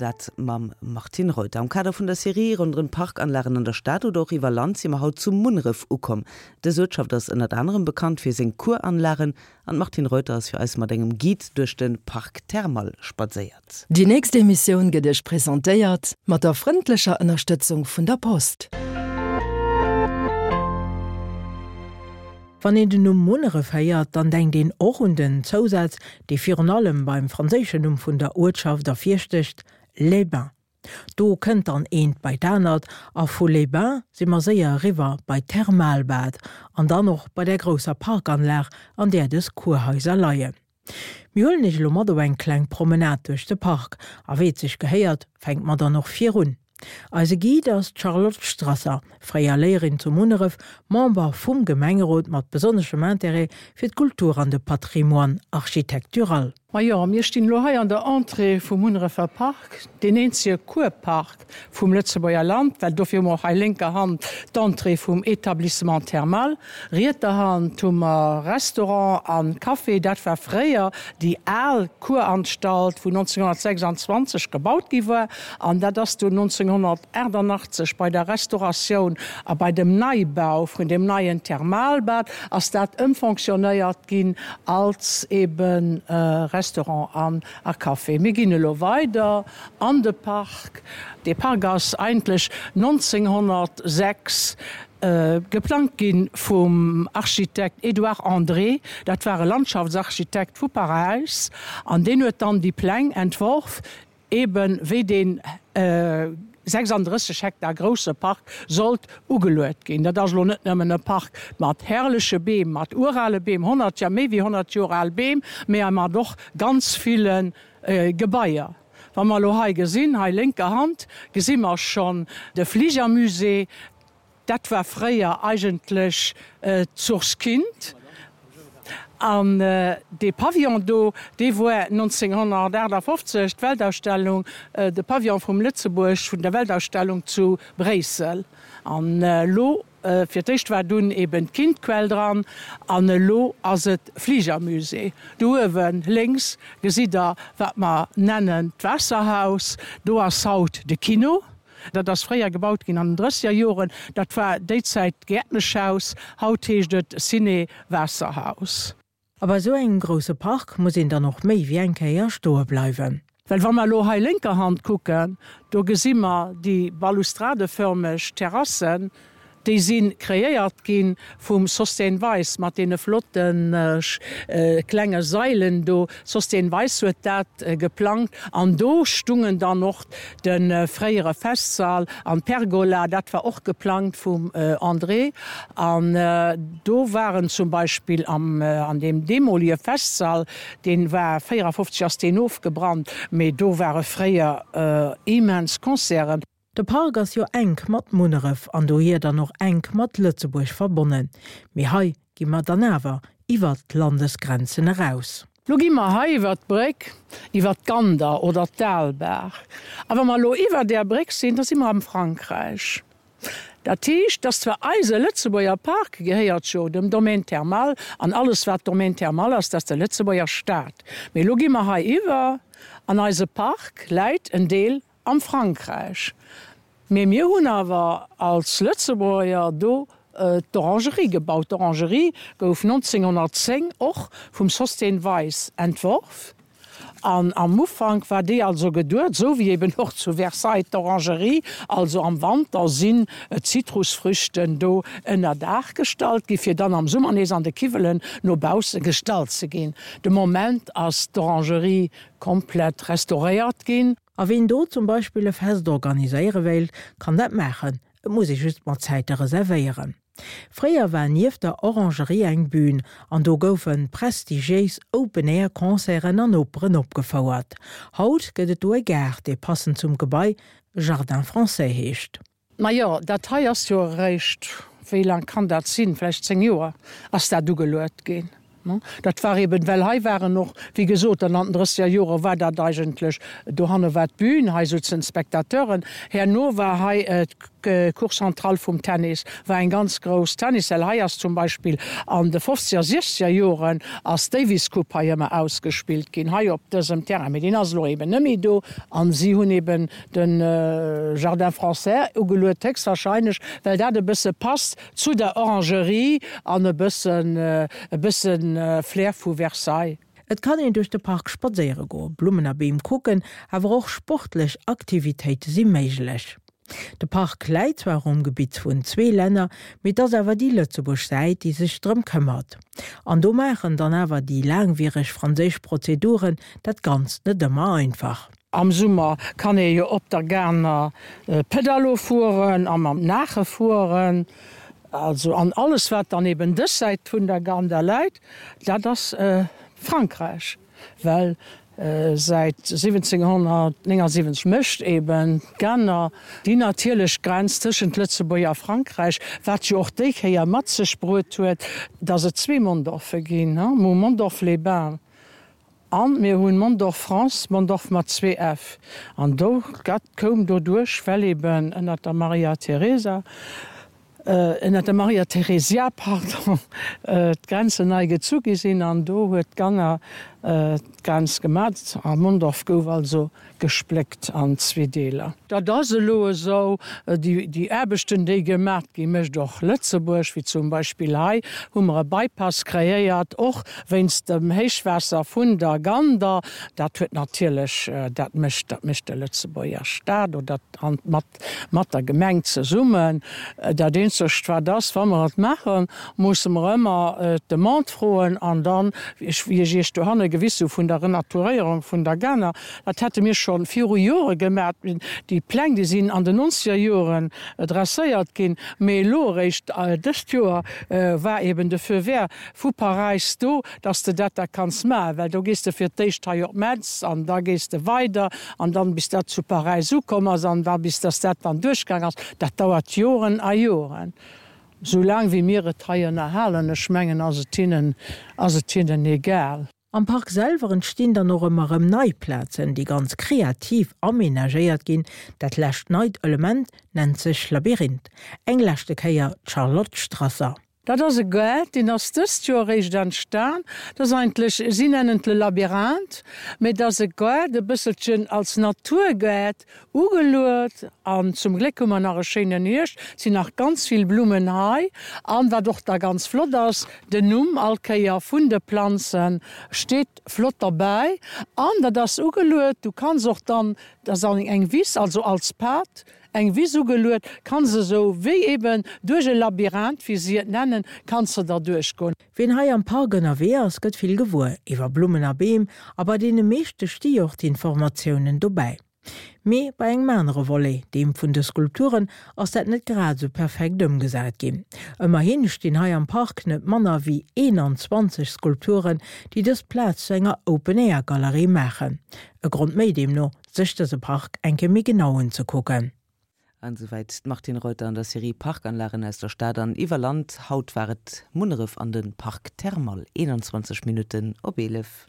dat mam Martine Reuter. Am Kader vun der Serie ronderëm d'Parkanlagen an der Stad oder och iwwer Land si mer haut zu Munneref ukomm. Dës Uertschaft ass ënnert anerem bekannt fir seng Kuranlagen an d'Martine Reuter ass fir eis mat engem Guide duerch de Parc Thermal spadséiert. Déi nächst Emissioun gëtt Iech presentéiert mat der frëndlecher Ënnerstëtzung vun der Post. Wann een den Numm Munneref héiert, dann denkt een och un den Zousaz, dee virun allem beim franséischen Numm vun der Uertschaft ervirstécht, Les Bains. Do kënnt dann eent bei d'anert a vu Les Bains si mer séier eriwwer bei d'Thermalbad an dann och bei där grousser Parkanlag, an där dës Kurhaiser leien. Mir huelen iech elo mat op eng kleng Promenade duerch de Park a wéi et sech gehéiert, fänke mer dann och virun. Eise Guide ass d'Charlotte Strasser, fréier Léierin zu Munneref, Member vum Gemengerot mat besonneschem Intérêt fir d'Kultur an de Patrimoine architectural. Majo, mir stinn elo hei an der Entrée vum Munnerefer Park, deen eenzege Kurpark vum Lëtzebuerger Land, well dofir hu mer och hei lénker Hand d'Entrée vum Établissement thermal. Rietser Hand hu mer Restaurant a Café. Dat war fréier déi al Kuranstalt, wou 1926 gebaut gi war. An dat ass dunn 1988 bei der Restauratioun a bei dem Neibau vun deem neien Thermalbad ass dat ëmfonctionnéiert ginn als ebe Restaurant an a Café. Mir ginn elo weider an de Park. Dee Park ass eigentlech 1906 geplangt gi vum Architekt Edouard André. Dat war e Landschaftsarchitekt vu Paräis an deen huet dann déi Pläng entworf, eben wéi dee 36 Hektar grousse Park sollt ugeluet ginn. Dat ass elo net nëmmen e Park mat herrleche Beem, mat urale Beem, 100, ja méi wéi 100 Joer al Beem, mä mat och ganz ville Gebaier. Wa mer elo hei gesinn, hei lénker Hand gesi mer schonn de Fligermusée. Dat war fréier eigentlech d'Source Kind. An dee Pavillon do, dee woar 1958 d'Weltausstellung, de Pavillon vum Lëtzebuerg vun der Weltausstellung zu Bréissel. An elo, fir d'éischt war dunn eben d'Kindquell dran an elo ass et Fligermusée. Do uewe lénks gesitt Der, wat mer nennen d'Waasserhaus. Do ass haut de Kino. Dat ass fréier gebaut ginn an den drësseger Joren. Dat war déi Zäit d'Gäertneschhaus, haut heescht et Ciné Waasserhaus. A bei esou engem grousse Park muss een dann och méi wéi eng Kéier stoe bleiwen. Well wa mer elo hei lénker Hand kucken, do gesi mer déi balustradeförmeg Terrassen, Déi si kreéiert gi vum Sosthène Weis mat deene flotte klenge Sailen do. Sosthène Weis huet dat geplangt an do stungen dann och de fréiere Festsall an d'Pergola, dat war och geplangt vum André. An do waren zum Beispill am an deem deemolige Festsall, dee war 54 ass deen ofgebrannt, mee do ware fréier immens Concerten. De Park ass jo enk mat Munneref an dohier dann och enk mat Lëtzebuerg verbonnen. Mee hei gi mer dann awer iwwert d'Landesgrenzen eraus. Lo gi mer hei iwwert d'Bréck, iwwert d'Gander oder d'Aalbaach. A wa mer elo iwwer där Bréck sinn, da si mer am Frankräich. Dat heescht, dass zwar eise Lëtzebuerger Park gehéiert jo dem Domaine thermal an alles wat Domaine thermal ass, dat ass de Lëtzebuerger Staat. Mee elo gi mer hei iwwer an eise Park läit en Deel Am Frankräich. Mee mir hunn awer als Lëtzebuerger do d'Orangerie gebaut. D'Orangerie gouf 1910 och vum Sosthène Weis entworf. An am Ufank war déi also geduet, esou wéi eben och zu Versailles d'Orangerie, also am Wanter sinn d'Zitrusfrüchten do ënner Daach gestallt gi fir dann am Summer nees an de Kiwwelen no bausse gestallt ze ginn. De Moment ass d'Orangerie komplett restauréiert ginn. A ween do zum Beispill e Fest organiséiere wéilt, kann dat maachen, et muss ee just mat Zäite reservéieren. Fréier war nieft der Orangerie eng Bühn an do goufe prestigiéis Open-Air-Concerten an Operen opgefouert. Haut gëtt et do e Gaart, dee passend zum Gebai Jardin Français heescht. Majo, dat hei ass jo eréischt, wéi laang kann dat sinn, vläicht 10 Joer ass dat ugeluet ginn. Dat war eben, well hei waren och, wéi gesot, dann an den drësseger Jore war dat eigentlech, dohanne war d'Bün, hei souzen d'Spectateuren, herno war hei. Cour centrale vum Tennis war eng ganz grouss Tennishal. Hei ass zum Beispill an de fofzeger, siechzeger Joren ass d'Davis Cup hei ëmmer ausgespillt ginn, hei op dësem Terrain. Mee deen ass elo eben net méi do an si hunn eben de Jardin français ugeluet, héchstwahrscheinlech well dat e bësse passt zu der Orangerie an e bëssen, e bësse Flair vu Versailles. Et kann een duerch de Park spadséiere goen, Blummen a Beem kucken, awer och sportlech Aktivitéite si méiglech. De Park läit zwar um Gebitt vun zwee Länner, mee et ass awer déi Lëtzebuerg Säit, déi sech drëm këmmert. An do maachen dann awer déi laangwiereg franséisch Prozeduren dat Ganzt net ëmmer einfach. Am Summer kann ee jo op der Ganer Pedalo fueren a mam Naache fueren. Also an alles wat dann eben dës Säit vun der Gander läit, dat ass Frankräich, well säit 1779 mécht eben d'Ganer déi natierlech Grenz tëschent Lëtzebuerg a Frankräich, wat jo och déi Kéier mat sech bruet huet, datt et zwee Mondorfe ginn, Mondorf-les-Bains An mir hunn Mondorf France, Mondorf mat zwee F. An do, dat koum doduerch, well eben ënnert der Maria Theresa, ënnert der Maria Theresia, pardon, d'Grenzen nei gezu gi sinn. An do huet d'Ganner d'Grenz gemat a Mondorf gouf also gespléckt an zwee Deeler. Dat ass elo esou. Déi Aarbechten, déi gemat ginn, mécht och Lëtzebuerg, wéi zum Beispill hei hu mer e Bypass kreéiert, och wéinst dem Héichwaasser vun der Gander. Dat huet natierlech, dat mécht, dat mécht de Lëtzebuerger Staat oder mat, mat der Gemeng zesummen. Dat eenzegt wat ass, wa mer et maachen, musse mer ëmmer d'Demande froen an dann, wéi ech Iech dohanne gewis hu vun der Renaturéierung vun der Ganer, dat hätte mir scho viru Jore gemaach, déi Pläng, déi sinn an den nonzeger Joren dresséiert ginn, mee elo eréischt dëst Joer war eben de Feu vert vu Paräis do, dass de dat da kanns maachen, well do gees de fir d'éischt hei op Metz an da gees de weider an dann bis dat zu Paräis ukomm ass an da bis dass dat dann duerchgaang ass, dat dauert Joren a Joren. Sou laang wéi mir et hei ënnerhalen, ech mengen, ass et hinnen, ass et hinnen egal. Am Park selwer entstinn dann och ëmmer erëm nei Plazen, déi ganz kreativ amenagéiert ginn. Dat lescht neit Element nennt sech Labyrinth. Eng leschte Kéier d'Charlotte Strasser. Dat ass e Gaart, deen ass dëst Joer eréischt entstan. Dat ass eigentlech, si nennen et le Labyrinthe, mee et ass e Gaart e bësselchen als Naturgaart ugeluet. An zum Gléck hu mer nach e schéinen Hierscht, et sinn nach ganz vill Blummen hei. An wat och da ganz flott ass, den Numm all Kéier vun de Planze steet flott derbäi. An dat ass ugeluet, du kanns och dann, dat ass eng Wiss, also als Pad, Eng Wiss ugeluet, kanns esou wéi eben duerch e Labyrinth, wéi si et nennen, kanns de der duerchgoen. Wien hei am Park ënnerwee ass, gëtt vill gewuer iwwer Blummen a Beem a bei deene meeschte sti och d'Informatiounen dobäi. Mee bei engem anere Volet, deem vun de Skulpturen, ass dat net grad esou perfekt ëmgesat ginn. Ëmmerhi stinn hei am Park net manner wéi 21 Skulpturen, déi dës Plaz zu enger Open-Air-Galerie maachen. E Grond méi deemno, sech dëse Park eng Kéier méi genau unzekucken. An esouwäit d'Martine Reuter an der Serie Parkanlagen aus der Stad an iwwer Land. Haut war et Munneref an de Parc Thermal. 21 Minutten op 11.